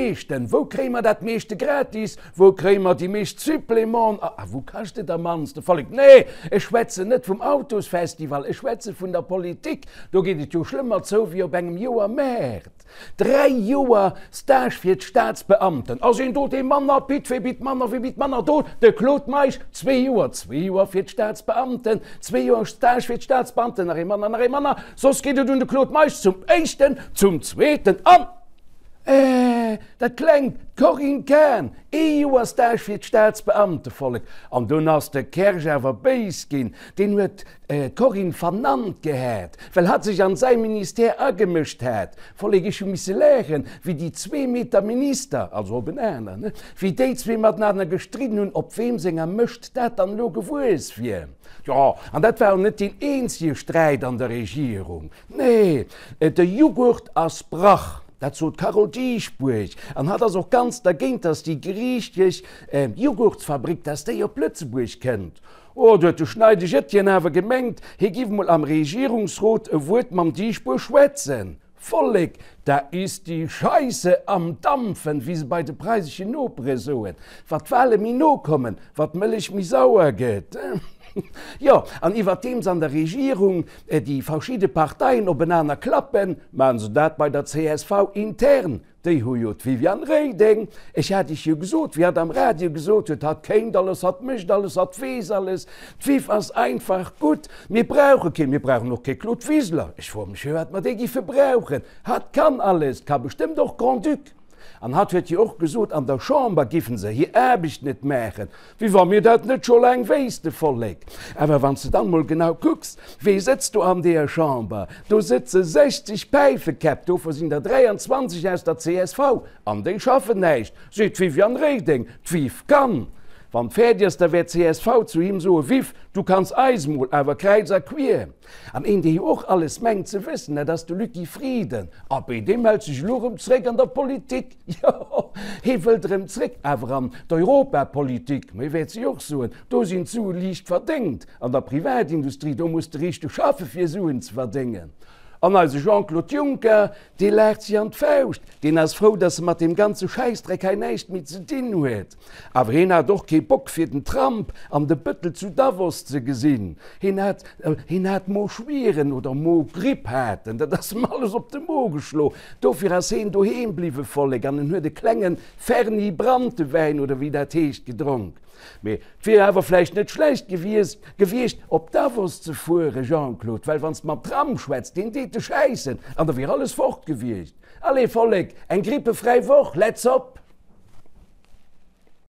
meeschten? Wou kréie mer dat meeschte gratis? Wou kréie mer déi meescht Supplémenten? A wou kascht et am mannste? Vollek, Nee, ech schwätzen net vum Autosfestival, ech schwätze vun der Politik. Do geet et jo schlëmmer zou wéi op engem Joermaart. 3 Joer Stage fir d'Staatsbeamten. Ass een do dee manner bitt, wee bitt manner, wee bitt manner? Do de Claude Meisch, zwee Joer, zwee Joer fir d'Staatsbeamten, zwee Joer Stage fir d'Staatsbeamten, nach ee manner, nach ee manner, soss geet et un de Claude Meisch zum éischten, zum zweeten an, eh, dat klengt, d'Corinne Cahen, ee Joer Stage fir d'Staatsbeamtevollek. An dunn ass de Kersch awer béis ginn, deen huet d'Corinne vernannt gehat, well hatt sech an säi Ministère agemëscht hat. Vollek, ech hu misse laachen, wéi déi zwee Meter Minister, also op en aner, ne, wéi déi zwee matenaner gestridden hunn, op weem senger Mëscht dat dann elo gewuess wier. Jo, an dat war och net deen eenzege Sträit an der Regierung. Nee, de Jughurt ass Brach, dat sot d'Carole Dieschbourg. An hatt ass och ganz dergéint, dass déi griichesch Jughurtsfabrik, dass déi op Lëtzebuerg kënnt. Oh, do huet de Schneideg Etienne awer gemengt, hie giff mol am Regierungsrot e Wuert mam Dieschbourg schwätzen. Vollek, da ist die Scheisse am Dampfen, wéi se bei de preiseschen Nopere soen. Wat d'Wale méi no kommen, wat d'Mëllech méi sauer gëtt. Jo, an iwwerdeems an der Regierung déi verschidde Parteien openaner klappen, maachen se dat bei der csv intern. Déi hu jo d'Viviane Reding, ech hat iech jo gesot, wéi hatt am Radio gesot huet, hatt kéint alles, hatt mécht alles, hatt weess alles. D'Viv ass einfach gutt. Mir brauche keen, mir brauchen och kee Claude Wiseler. Ech froe mech, firwat mer dee giffe brauchen. Hatt kann alles, ka bestëmmt och Grand-Duc. An hatt huet jo och gesot, an der Chamber giffen se hir Aarbecht net maachen. Wéi wa mir dat net scho laang wéisste, Vollek. Awer wann s de dann mol genau kucks, wee sëtzt do an deeër Chamber? Do sëtze 60 Päifekäpp, dovou sinn der 23 aus der csv, an déi schaffen näischt, seet d'Viviane Reding. D'Viv kann. Wann d'fäerdeg ass, da wäert csv zu him soen, Viv, du kanns eis mol, awer kräiz a quier. An een, dee jo och alles mengt ze wëssen, dat ass de Lucky Frieden. Abee, dee mellt sech elo erëm zréck an der Politik. Jo, hee wëllt erëm zréck, awer an d'Europapolitik. Mee wäert si och soen, do sinn d'Sue liicht verdéngt. An der Privatindustrie, do muss de richteg schaffe fir Suen ze verdéngen. An eise Jean-Claude Juncker, dee laacht si an d'Fauscht. Deen ass frou, datt e mat deem ganze Schäissdreck hei näischt méi ze dinn huet. Awer heen hat och kee Bock fir den Trump an de Bëttel zu Davos ze gesinn. Heen hat, heen hat Moschwieren oder Mogripp hat en, dat ass em alles op de Mo geschlo. Dofir ass heen doheem bliwwe, Vollek, an en huet e klenge Ferni Branntewäin oder wéi dat heescht gedronk. Mee et wier awer vläicht net schlecht gewiescht, gewiescht op Davos ze fuere, Jean-Claude, well wann s de mam Trump schwätz, deen deet dech schäissen an da wier alles fort gewiescht. Allez, Vollek, eng grippefräi Woch, let's op!